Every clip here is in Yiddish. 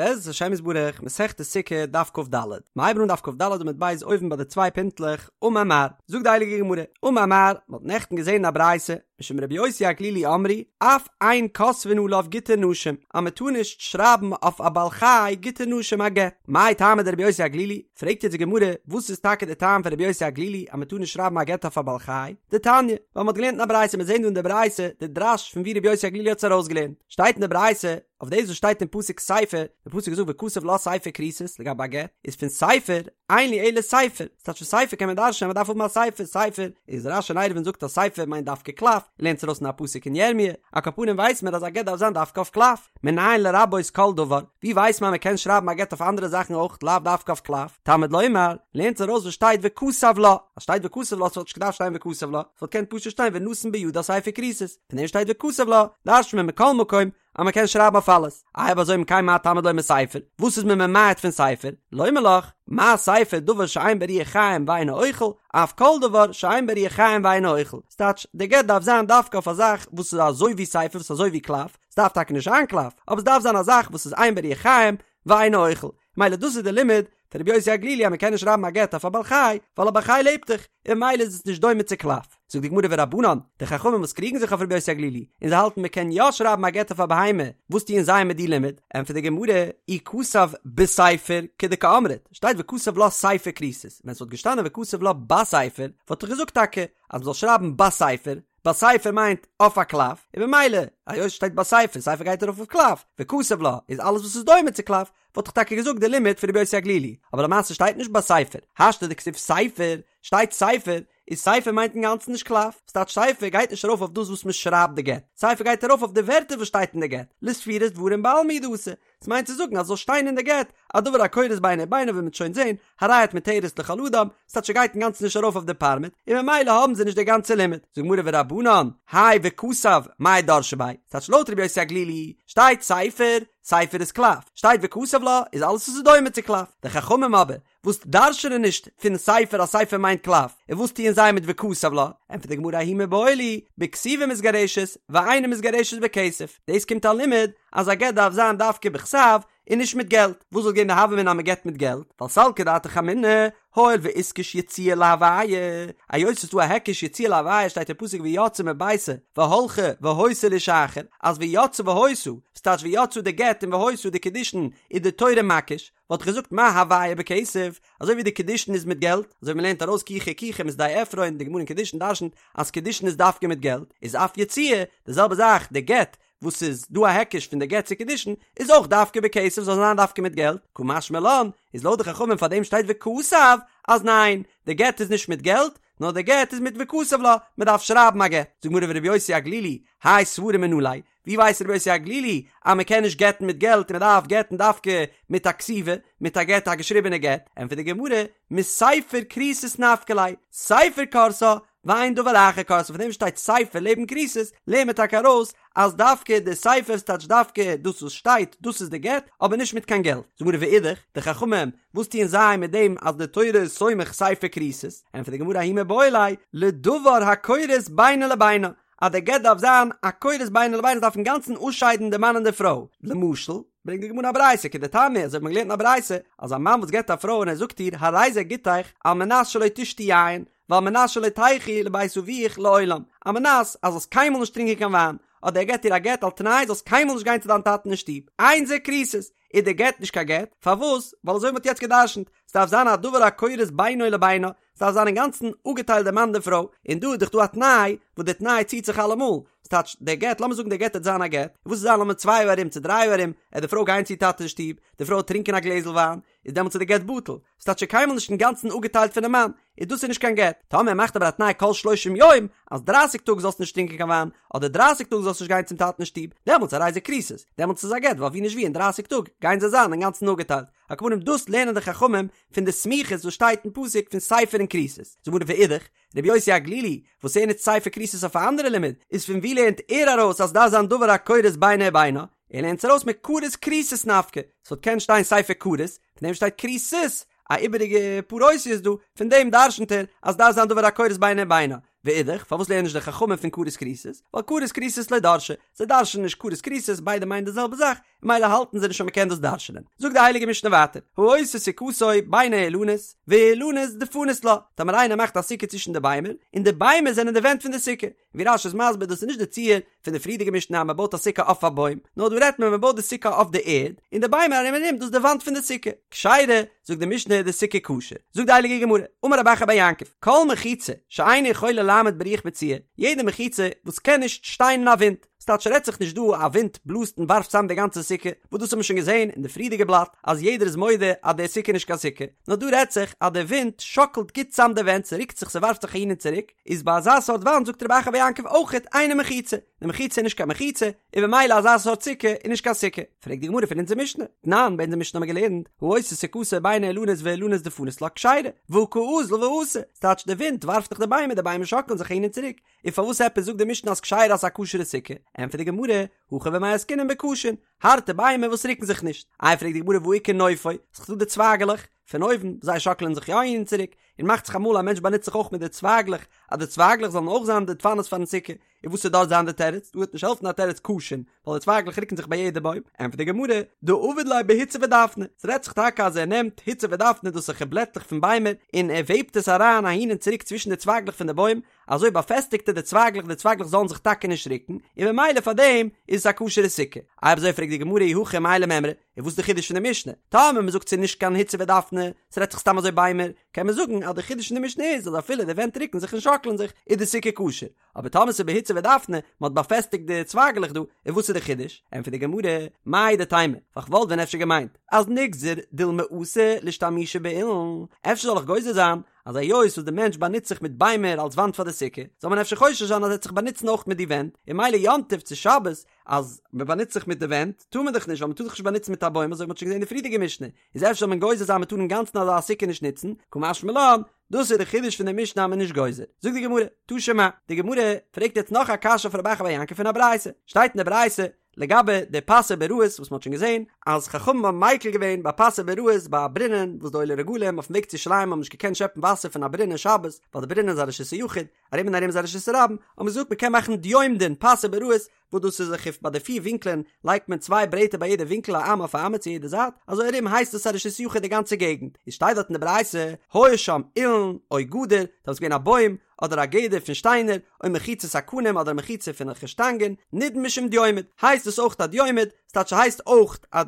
בעזרת השם יתברך, מסכת סוכה, דף כ"ד. מ'הייבן אן דף כ"ד עמוד ב' אויבן ביי די צוויי פינטלעך, אמר מר. זאגט די הייליגע גמרא, אמר מר, מ'האט נעכטן געזען אין א ברייתא, משום רבי יוסי הגלילי אמרו, אף אין כותבין עליו גיטי נשים, אז מ'טאר נישט שרייבן אויף א בעל חי גיטי נשים א גט. מאי טעמא דרבי יוסי הגלילי? פרעגט יעצט די גמרא, וואס איז טאקע די טעם פון רבי יוסי הגלילי אז מ'טאר נישט שרייבן א גט אויף א בעל חי? דתניא, ווייל מ'האט געלערנט אין א ברייתא, מיר זעען דא אין די ברייתא די דרש פון ווי רבי יוסי הגלילי האט עס ארויסגעלערנט, שטייט אין די ברייתא, אויף דאס וואס שטייט אין פסוק ספר, די פסוק זאגט וכתב לה ספר כריתות לגבי א גט, איז פון ספר, אין לי אלא ספר, ס'טייטש פון ספר קען מען דרש'נען אז מ'דארף האבן א ספר, ספר, איז רש"י אין עירובין זאגט אז ספר מיינט דווקא קלף, ער לערנט עס ארויס אין א פסוק אין ירמי', על כל פנים ווייסט מען אז א גט דארף זיין דווקא אויף קלף, מנין לרבות כל דבר, ווי ווייסט מען אז מ'קען שרייבן א גט אויף אנדערע זאכן אויך לאו דווקא אויף קלף, תלמוד לומר, לערנט ארויס וואס שטייט וכתב לה, אז שטייט וכתב לה ס'וואלט נישט געדארפט שטיין וכתב לה, ס'וואלט געקענט פשוט שטיין ונתן בידה ספר כריתות. פון דעם שטייט וכתב לה, דרש'נט מען מכל מקום אז מען קען שרייבן אויף אלעס, איי אויב אזוי אם כן מה תלמוד לומר ספר, וואס איז מען ממעט פון ספר, לומר לך, מה ספר דבר שאין בו רוח חיים ואינו אוכל, אף כל דבר שאין בו רוח חיים ואינו אוכל, ס'טייטש, די גט דארף זיין דווקא אויף א זאך וואס איז אזוי ווי ספר וואס איז אזוי ווי קלף, ס'דארף טאקע נישט זיין קלף, אבער ס'דארף זיין א זאך וואס איז אין בו רוח חיים ואינו אוכל, מילא דאס איז די לימוד פון רבי יוסי הגלילי אז מען קען נישט שרייבן א גט אויף א בעל חי ווייל א בעל חי לעבט דאך און מילא איז עס נישט דומה צו קלף. זאגט די גמרא ורבנן, די חכמים וואס קריגן זיך אויף רבי יוסי הגלילי און זיי האלטן מען קען יא שרייבן א גט אויף א בהמה, וואס טוען זיי מיט די לימוד? ענטפערט די גמרא, אי כתב בספר כדקאמרת, שטייט וכתב לה ספר כריתות, ווען ס'וואלט געשטאנען וכתב לה בספר וואלט איך געזאגט טאקע אז מ'זאל שרייבן בספר, בספר מיינט אויף א קלף, און במילא היות ס'שטייט בספר, ספר גייט ארויף אויף קלף, וכתב לה איז אלעס וואס איז דומה צו קלף, וואלט איך טאקע געזאגט די לימוד פון רבי יוסי הגלילי, אבער למעשה שטייט נישט בספר, השתא דכתיב ספר, שטייט ספר, איז ספר מיינט אינגאנצן נישט קלף, ס'טייטש ספר גייט נישט ארויף אויף דאס וואס מ'שרייבט די גט, ספר גייט ארויף אויף די ווערטער וואס שטייט אין די גט, לספירת דברים בעלמא הוא דאתא, ס'מיינט צו זאגן אז ס'זאל שטיין אין די גט א דבר הכורת בינו ובינה ווי מ'וועט שוין זען, הרי את מותרת לכל אדם, ס'טייטש ס'גייט אינגאנצן נישט ארויף אויף די פארמעט, און ממילא האבן זיי נישט די גאנצע לימוד. זאגט גמרא ורבנן, האי וכתב, מאי דרשי ביה? ס'טייטש לויט רבי יוסי הגלילי, שטייט ספר, ספר איז קלף, שטייט וכתב לה, איז אלעס וואס איז דומה צו קלף. די חכמים אבער, וואס דרש'נען נישט פון ספר אז ספר מיינט קלף, און וואס טוען זיי מיט וכתב לה? ענטפערט די גמרא ההוא מיבעי להו, בכתיבה מתגרשת, ואינה מתגרשת בכסף. דאס קומט א לימוד אז א גט דארף זיין דווקא בכתב, און נישט מיט געלט. וואס וואלט געווען די הוה אמינא אז מען גט מיט געלט? ווייל סלקא דעתך אמינא, הואיל ואיתקש יציאה להוויה, היות ס'איז דא א היקש יציאה להוויה שטייט אין פסוק ויצאה מביתו והלכה והיתה לאיש אחר, אז ויצאה והיתה, ס'טייטש ויצאה די גט און והיתה די קידושין איז די תורה מקיש, וואלט איך געזאגט מה הוויה בכסף, אזוי ווי די קידושין איז מיט געלט, אזוי ווי מ'לערנט ארויס קיחה קיחה משדה עפרון, די גמרא אין קידושין דרשנ'ט אז קידושין איז דווקא מיט געלט, איז אף יציאה, די זעלבע זאך די גט, וואס איז דא א היקש פון די גט צו קידושין, איז אויך דווקא בכסף זאל זיין דווקא מיט געלט, קא משמע לן, איז לויט די חכמים פאר דעם שטייט וכתב, אז ניין, די גט איז נישט מיט געלט, נאר די גט איז מיט וכתב לה, מען דארף שרייבן א גט. זאגט גמרא ורבי יוסי הגלילי, האי סברא מנא ליה, ווי ווייסט רבי יוסי הגלילי אז מען קען נישט גט'ן מיט געלט און מען דארף גט'ן דווקא מיט א כתיבה, מיט א גט א געשריבענע גט, ענטפערט די גמרא, מספר כריתות נפקא ליה, ספר כורתה, ואין דבר אחר כורתה, פון דעם שטייט ספר לעבן כריתות, לערנט מען טאקע ארויס אז דווקא די ספר ס'טייטש דווקא דאס וואס שטייט דאס איז די גט, אבער נישט מיט קיין געלט. זאגט גמרא ואידך, די חכמים, וואס טוען זיי מיט דעם אז די תורה איז סומך ספר כריתות? ענטפערט די גמרא ההוא מיבעי ליה, לדבר הכורת בינו לבינה, אז די גט דארף זיין א כורת בינו לבינה עס דארף אינגאנצן אפשיידן די מאן און די פרוי, למשל, ברענגט די גמרא א ברייתא כדתניא אזוי האט מען געלערנט אין א ברייתא אז א מאן וואס גט א פרוי און ער זאגט איר הרי זה גיטך על מנת שלא תשתי יין ועל מנת שלא תלכי לבית אביך לעולם, על מנת אז זאלסט קיינמאל נישט טרינקען קיין וויין, אדער ער געט איר א גט על תנאי זאלסט קיינמאל נישט גיין צו דיין טאטן אין שטוב, אין זה כריתות, איז די גט נישט קיין גט, פארוואס? ווייל אזוי ווי מ'האט יעצט גע'דרש'נט, ס'דארף זיין א דבר הכורת בינו לבינה, ס'דארף זיין אינגאנצן אפגעטיילט די מאן די פרוי, און דא איז דאך דא א תנאי, וואס די תנאי ציט זיך אלעמאל, ס'טייטש, דער גט, לאמיר זאגן דער גט וועט זיין א גט, וואס וועט זיין לאמיר צוויי יאר ארום צו דריי יאר ארום, עט די פרוי גיין צו איר טאטע אין שטוב, די פרוי וועט טרינקען א גלעזל וויין, איז דעמאלטס איז די גט בטל, ס'טייטש שוין קיינמאל נישט אינגאנצן אפגעטיילט פונעם מאן, איז דאס איז נישט קיין גט, טאמער ער מאכט אבער א תנאי כל שלושים יום, אז דרייסיג טאג זאלסט נישט טרינקען קיין וויין, אדער דרייסיג טאג זאלסט נישט גיין צום טאטן אין שטוב, דעמאלטס הרי זה כריתות, דעמאלטס איז א גט, ווייל ווי נישט ווי אין דרייסיג טאג גייען זיי זיין אינגאנצן אפגעטיילט. על כל פנים דאס לערנען די חכמים פון די סמיכות וואס שטייט אין פסוק פון ספר און כריתות. זאגט גמרא ואידך, רבי יוסי הגלילי, וואס ער נוצט ספר כריתות אויף א אנדערע לימוד, איז פון ווי לערנט ער ארויס אז דארף זיין דבר הכורת בינו ובינה? ער לערנט עס ארויס מכרת כריתות נפקא, ס'וואלט קענען שטיין ספר כרת, פון דעם שטייט כריתות, א איבעריגע פאר אותיות דא, פון דעם דרשנ'ט ער אז דארף זיין דבר הכורת בינו ובינה. ואידך, פארוואס לערנען נישט די חכמים פון כרת כריתות? ווייל כרת כריתות לא דרשי, זיי דרש'נען נישט כרת כריתות, ביידע מיינען די זעלבע זאך, ממילא האלטן זיי נישט אז מ'קען דאס דרש'נען. זאגט די הייליגע משנה ווייטער, העושה סוכתו בין האילנות, והאילנות דפנות לה, טאמער איינער מאכט א סוכה צווישן די ביימער, און די ביימער זענען די ווענט פון די סוכה, ווי רש"י איז מסביר דאס איז נישט די ציור פון די פריערדיגע משנה אז מען בויט א סוכה אויף א בוים, נאר דא רעדט מען מען בויט די סוכה אויף די ערד, און די ביימער ארום און ארום דאס איז די וואנט פון די סוכה. כשרה, זאגט די משנה איז די סוכה כשר. זאגט די הייליגע גמרא, אמר רב אחא בר יעקב, כל מחיצה שאינה יכולה לעמוד ברוח מצויה, יעדע מחיצה וואס קען נישט שטיין אין א ווינט, ס'טייטש ס'רעדט זיך נישט דא א ווינט בלאזט און ווארפט צאם די גאנצע סוכה, וואס דאס האט מען שוין געזען אין די פריערדיגע בלאט אז יעדער איז מודה אז די סוכה איז נישט קיין סוכה, נאר דא רעדט זיך אז די ווינט שאקלט גוט צאם די ווענט ס'רוקט זיך ס'ווארפט זיך אהין און צוריק, איז ביי אזא סארט וואנט זאגט רב אחא בר יעקב אויכעט אינה מחיצה, די מחיצה איז נישט קיין מחיצה, און במילא אזא סארט סוכה איז נישט קיין סוכה. פרעגט די גמרא פון אונזער משנה, תנן, ביי אונזער משנה האבן מיר געלערנט, העושה סוכתו בין האילנות והאילנות דפנות לה כשרה, והא קא אזיל ואתי, ס'טייטש די ווינט ווארפט דאך די ביימער, די ביימער שאקלען זיך אהין און צוריק, און פארוואס עפעס זאגט די משנה אז כשרה אז ס'איז א כשר'ע סוכה? ענטפערט די גמרא, הכא במאי עסקינן בקשין, הארטע ביימער וואס רוקן זיך נישט. איי פרעגט די גמרא והא איכא נופו, ס'איז דא די צווייגעלעך פון אויבן, זיי שאקלען זיך יא אהין און צוריק, און מאכט זיך אמאל א מענטש באנוצט זיך אויך מיט די צווייגלעך, אז די צווייגלעך זאלן אויך זיין די דפנות פארן סוכה, און וואס וועט דארט זיין די תירוץ? דא וועט נישט העלפן א תירוץ קשין, ווייל די צווייגלעך רוקן זיך ביי יעדע בוים, ענטפערט די גמרא, דעביד ליה בהוצא ודפנא, ס'רעדט זיך טאקע אז ער נעמט הוצא ודפנא דאס איז אזעלכע בלעטלעך פון ביימער, און ער וועבט עס אריין אהין און צוריק צווישן די צווייגלעך פון די בוים, אזוי באפעסטיגט ער די צווייגלעך די צווייגלעך זאלן זיך טאקע נישט רוקן, און ממילא פאר דעם איז עס א כשר'ע סוכה. אויב אזוי פרעגט די גמרא אי הכי מאי למימרא, און וואס איז די חידוש פון די משנה? טאמער מ'זאגט ס'איז נישט קיין הוצא ודפנא, ס'רעדט זיך סתם אזוי ביימער, קען מען זאגן אז די חידוש פון די משנה איז אז אפילו די ווענט רוקן זיך און שאקלען זיך איז די סוכה כשר, אבער טאמער ס'איז בהוצא ודפנא, מ'האט באפעסטיגט די צווייגלעך דא, און וואס איז די חידוש? ענטפערט די גמרא, מהו דתימא, ווייל כ'וואלט ווען אפשר געמיינט אז נגזר דילמא אתי לאשתמושי באילן, אפשר זאל איך גוזר זיין אז היות וואס די מענטש באנוצט זיך מיט ביימער אלס וואנט פאר די סוכה, זאל מען אפשר חושש זיין אז ער וועט זיך באנוצן אויך מיט די ווענט, און ממילא יום טוב צו שבת אז מען באנוצט זיך מיט די ווענט טאר מען דאך נישט ווייל מען טאר זיך נישט באנוצן מיט א בוים אזוי ווי מען האט שוין געזען אין די פריערדיגע משנה, איז אפשר זאל מען גוזר זיין מען טאר אינגאנצן אזא סוכה נישט נוצן, קא משמע לן, דאס איז די חידוש פון די משנה אז מען איז נישט גוזר. זאגט די גמרא, תא שמע, די גמרא פרעגט יעצט נאך א קשיא אויף רב אחא בר יעקב פון א ברייתא, שטייט אין די ברייתא לגבי די פסי ביראות וואס מען האט שוין געזען אז חכמים האבן מיקל געווען ביי פסי ביראות ביי א ברינען וואס די עולי רגלים אויפן וועג צו ירושלים האבן נישט געקענט שעפן וואסער פון א ברינען שבת ווייל די ברינען איז א רשות היחיד ארום און ארום איז א רשות הרבים האט מען געזאגט מען קען מאכן דיומדין פסי ביראות וואס דאס איז אזעלכע ביי די פיר ווינקלען לייגט מען צוויי ברעטער ביי יעדע ווינקל א אמה אויף א אמה צו יעדע זייט אזוי ארום הייסט עס א רשות יחיד די גאנצע געגנט איז שטייט דארט אין די ברייתא היה שם אילן או גדר דארט איז געווען א בוים אדער א גדר פון שטיינער או מחיצת הקנים אדער א מחיצה פון אזעלכע שטאנגען נידון משום דיומד הייסט עס אויך א דיומד ס'טייטש ס'הייסט אויך א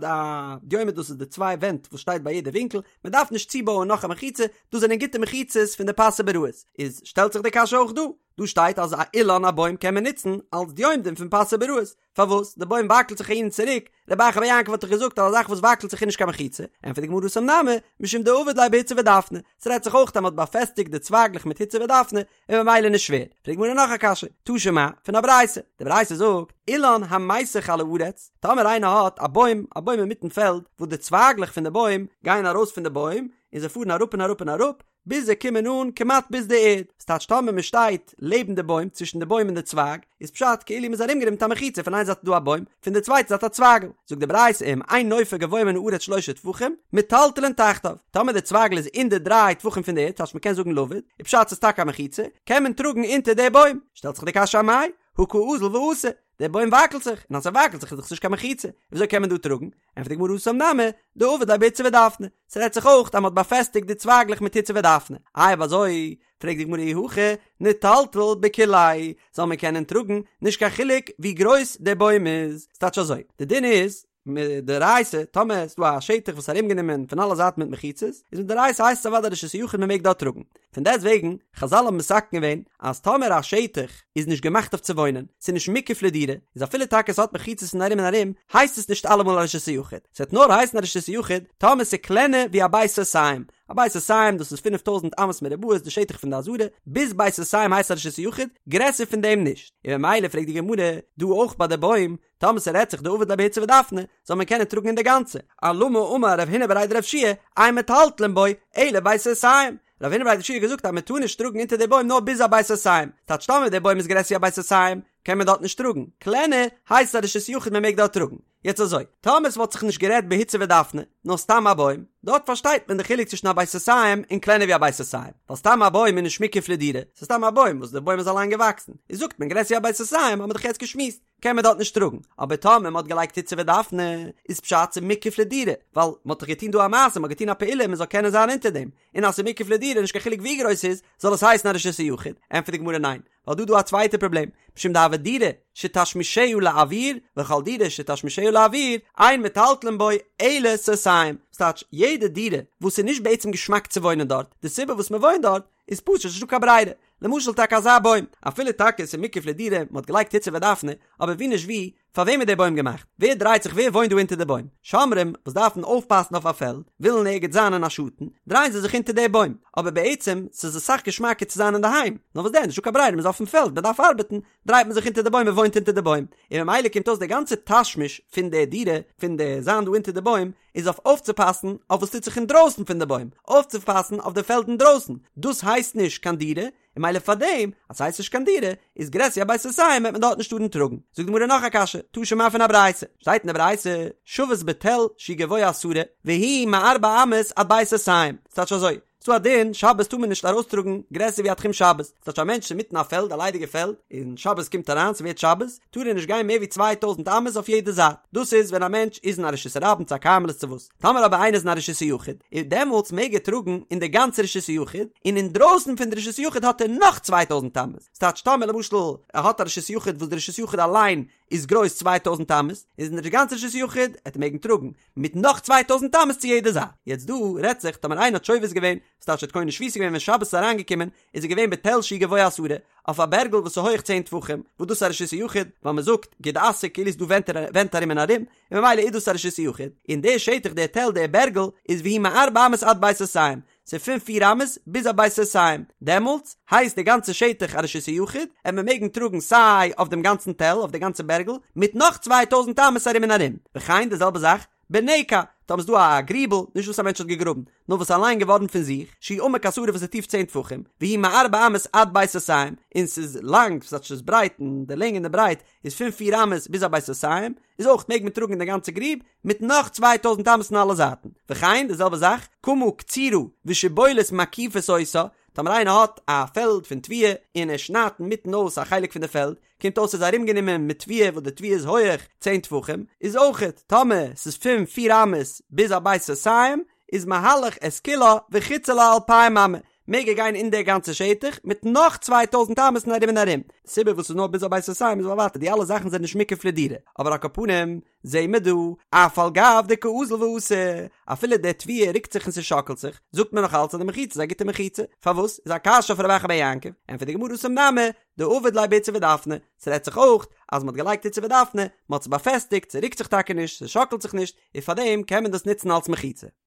דיומד דאס איז די צוויי ווענט וואס שטייט ביי יעדע ווינקל מען דארף נישט צובויען נאך א מחיצה דאס זענען גוטע מחיצות פון די פסי ביראות איז שטעלט זיך די קשיא אויך דא דא שטייט אז א אילן א בוים קען מען נוצן אלס דיומדין פון פסי ביראות, פארוואס? די בוים וואקלט זיך אהין און צוריק, רב אחא בר יעקב האט דאך געזאגט אז א זאך וואס וואקלט זיך איז נישט קיין מחיצה, ענטפערט די גמרא התם נמי, משום דעביד ליה בהוצא ודפנא, ס'רעדט זיך אויך אז מ'האט באפעסטיגט די צווייגלעך מיט הוצא ודפנא, און ממילא נישט שווער. פרעגט די גמרא נאך א קשיא, תא שמע, פון א ברייתא, די ברייתא זאגט, אילן המיסך על הארץ, טאמער איינער האט א בוים, א בוים אינמיטן פעלד, וואס די צווייגלעך פון די בוים גייען ארויס פון די בוים, און זיי פארן אראפ און אראפ און אראפ, ביז זיי קומען אן כמעט ביז די ערד, ס'טייטש טאמער מען שטייט לעבן די בוים, צווישן די בוים און די צווייג, איז פשט כאילו מ'איז ארומגענומען מיט א מחיצה, פון איין זייט איז דא א בוים, פון די צווייטע זייט א צווייגל, זאגט די ברייתא אם אין נופו גבוה מן הארץ שלשה טפחים, מטלטלין תחתיו, טאמער די צווייגל איז אין די דריי טפחים פון די ערד, ס'טייטש מ'קען זאגן לבוד, איז פשט ס'איז טאקע א מחיצה, קען מען טראגן אונטער די בוים, שטעלט זיך די קשיא אמאי, הא קא אזיל ואתי, דער בוים וואקלט זיך, און אז ס'וואקלט זיך איז דאך נישט קיין מחיצה, וויאזוי קען מען דא טראגן? ענטפערט די גמרא התם נמי, דעביד ליה בהוצא ודפנא, ס'רעדט זיך אויך אז מ'האט באפעסטיגט די צווייגלעך מיט הוצא ודפנא, איי אויב אזוי, פרעגט די גמרא אי הכי, ניטלטל בכוליה, זאל מען קענען טראגן, נישט קיין חילוק ווי גרויס דער בוים איז, ס'טייטש אזוי, די דין איז, מדאורייתא, טאמער איז דא א שטח וואס איז ארומגענומען פון אלע זייטן מיט מחיצות, איז מדאורייתא הייסט עס אוודאי רשות היחיד מען מעג דארט טראגן. פון דעסט וועגן, חזל האבן מתקן געווען אז טאמער א שטח איז נישט געמאכט אויף צו וואוינען, ס'איז נישט מוקף לדירה, איז אפילו טאקע ס'האט מחיצות פון ארום און ארום, הייסט עס נישט אלעמאל א רשות היחיד. ס'וועט נאר הייסן א רשות היחיד טאמער ס'איז קלענער ווי א בית סאתים. א בית סאתים דאס איז פינף טויזנט אמות מרובעות די שטח פון די עזרה, ביז בית סאתים הייסט א רשות היחיד, גרעסער פון דעם נישט. און ממילא פרעגט די גמרא דא אויך ביי די בוים, טאמער ס'רעדט זיך דעביד ליה בהוצא ודפנא, זאל מען קענען טראגן אין די גאנצע. אלמה אמר רב הונא בריה דרב יהושע, אין מטלטלין בו, אלא בית סאתים. רב הונא בריה דרב יהושע האט געזאגט אז מען טאר נישט טראגן אונטער די בוים נאר ביז א בית סאתים. טייטש טאמער די בוים איז גרעסער ווי א בית סאתים, קען מען דארט נישט טראגן. קלענער, הייסט א רשות יחיד מען מעג דארט טראגן. יעצט אזוי, טאמער ס'וואלט זיך נישט גערעדט בהוצא ודפנה, נאר סתם א בוים, דארט פארשטייט מען די חילוק צווישן א בית סאתים און קלענער ווי א בית סאתים, ווייל סתם א בוים איז נישט מוקף לדירה, ס'איז סתם א בוים וואס די בוים איז אליין געוואקסן, איז זאגט מען גרעסער ווי א בית סאתים האט מען דאך יעצט געשמועסט, קען מען דארט נישט טראגן, אבער טאמער מ'האט געלייגט הוצא ודפנה, איז פשט ס'איז מוקף לדירה, ווייל מ'האט דאך געטון דא א מעשה, מ'האט געטון א פעולה מ'זאל קענען זיין אונטער דעם, און אז ס'איז מוקף לדירה נישט קיין חילוק ווי גרויס ס'איז, זאל עס הייסן א רשות היחיד, ענטפערט די גמרא ניין, ווייל דא דא א צווייטע פראבלעם, משום דהוה דירה שתשמישה לאויר, וכל דירה שתשמישה לאויר, אין מטלטלין בו אלא סאתים, ס'טייטש יעדע דירה וואס איז נישט בעצם געשמאק צו וואוינען דארט, די סיבה וואס מ'וואוינט דארט איז פשוט נישטא קיין ברירה, למשל טאקע אזא בוים, אפילו טאקע ס'איז מוקף לדירה, מ'האט געלייגט הוצא ודפנה, אבער ווי נישט ווי, פאר וועם איז דער בוים געמאכט? ווער דרייט זיך ווער וואוינט דא אונטער די בוים? שומרים וואס דארפן אויפפאסן אויף א פעלד, ווילן ערגעץ זיין אין א שאטן, דרייען זיי זיך אונטער דער בוים, אבער בעצם ס'איז אסאך געשמאקער צו זיין אינדערהיים, נאר וואס דען נישטא קיין ברירה מ'איז אויפן פעלד מ'דארף ארבעטן, דרייט מען זיך אונטער די בוים מען וואוינט אונטער די בוים, און ממילא קומט אויס דער גאנצער תשמיש פון דער דירה, פון די זיין דא אונטער די בוים, איז אויף אויפצופאסן אויף וואס טוט זיך אינדרויסן פון די בוים, אויפצופאסן אויף די פעלד אינדרויסן, דאס הייסט נישט קיין דירה, און ממילא פאר דעם אז ס'הייסט נישט קיין דירה, איז גרעסער ווי א בית סאתים וועט מען דארט נישט טארן טראגן. זאגט די גמרא נאך א קשיא, תא שמע פון א ברייתא, שטייט אין די ברייתא, שבת בתל שהוא גבוה עשרה, והוא מארבע אמות עד בית סאתים, ס'טייטש אזוי, ס'דא א דין, שבת טאר מען נישט ארויסטראגן גרעסער ווי א תחום שבת, ס'טייטש א מענטש אינמיטן א פעלד, א ליידיגע פעלד, און שבת קומט אריין, ס'ווערט שבת, טאר ער נישט גיין מער ווי 2000 אמות אויף יעדע זייט, דאס איז ווען א מענטש איז אין א רשות הרבים צו א כרמלית צו וואס, טאמער אבער איינער איז אין א רשות היחיד, איז דעמאלטס מעג ער טראגן אין די גאנצע רשות היחיד, און אינדרויסן פון די רשות היחיד האט ער נאך 2000 אמות, ס'טייטש טאמער למשל ער האט א רשות יחיד וואס די רשות יחיד אליין איז גרויס 2000 אמות, איז אין די גאנצע רשות יחיד עט ער מעגן טראגן מיט נאך 2000 אמות צו יעדע זייט, יעצט דא רעדט זיך טאמער איינער האט שובת געווען, ס'טייטש ער האט קונה שביתה געווען ווען שבת איז אריינגעקומען, איז ער געווען בתל שהוא גבוה עשרה, אויף א בערגל וואס איז הויעך צען טפחים, וואס דאס איז א רשות היחיד, ווייל מען זאגט גוד אסיק כאילו איז דא ווענט ארום און ארום, און ממילא איז דאס א רשות היחיד, און דער שטח דער תל דער בערגל איז והוא מארבע אמות עד בית סאתים, ס'איז פון פיר אמות ביז א בית סאתים, דעמאלטס הייסט די גאנצע שטח א רשות היחיד, עט מען מעגן טראגן סיי אויף דעם גאנצן תל אויף די גאנצע בערגל, מיט נאך 2000 אמות ארום און ארום, וכן די זעלבע זאך בנקע, טאמער איז דא א גריבל, נישט וואס א מענטש האט געגראבן, נאר וואס אליין געווארן פון זיך, שהוא עמוק עשרה וואס איז טיף צען טפחים, והוא מארבע אמות עד בית סאתים, און ס'איז לאנג, ס'טייטש ס'איז ברייט, און די לענג און די ברייט איז פון פיר אמות ביז א בית סאתים, איז אויך מעג מען טראגן אין די גאנצע גריב, מיט נאך 2000 אמות אין אלע זייטן. וכן, די זעלבע זאך, קמה קצורה ושיבולת מקיפות אותה, טאמער איינער האט א פעלד פון תבואה, און ער שניידט אינמיטן אויס א חלק פון די פעלד, קומט אויס ס'איז ארומגענומען מיט תבואה וואס די תבואה איז הויעך צען טפחים, איז אויכעט טאמער ס'איז פון פיר אמות ביז א בית סאתים, איז מהלך את כולה וחוצה לה אלפיים אמה, מעג ער גיין אין די גאנצע שטח מיט נאך 2000 אמות אין ארום און ארום. די סיבה וואס ס'איז נאר ביז א בית סאתים איז ווייל ווייטער די אלע זאכן זענען נישט מוקף לדירה, אבער על כל פנים זעהן מיר דא, אף על גב דקא אזיל ואתי, אפילו די תבואה רוקט זיך און ס'שאקלט זיך, זאגט מען נאך אלץ אז די מחיצה איז א גוטע מחיצה. פארוואס? איז א קשיא אויף רב אחא בר יעקב, ענטפערט די גמרא התם נמי, דעביד ליה בהוצא ודפנא, ס'רעדט זיך אויך אז מ'האט געלייגט הוצא ודפנא, מ'האט עס באפעסטיגט, ס'רוקט זיך טאקע נישט, ס'שאקלט זיך נישט, און פארדעם קען מען דאס נוצן אלס מחיצה.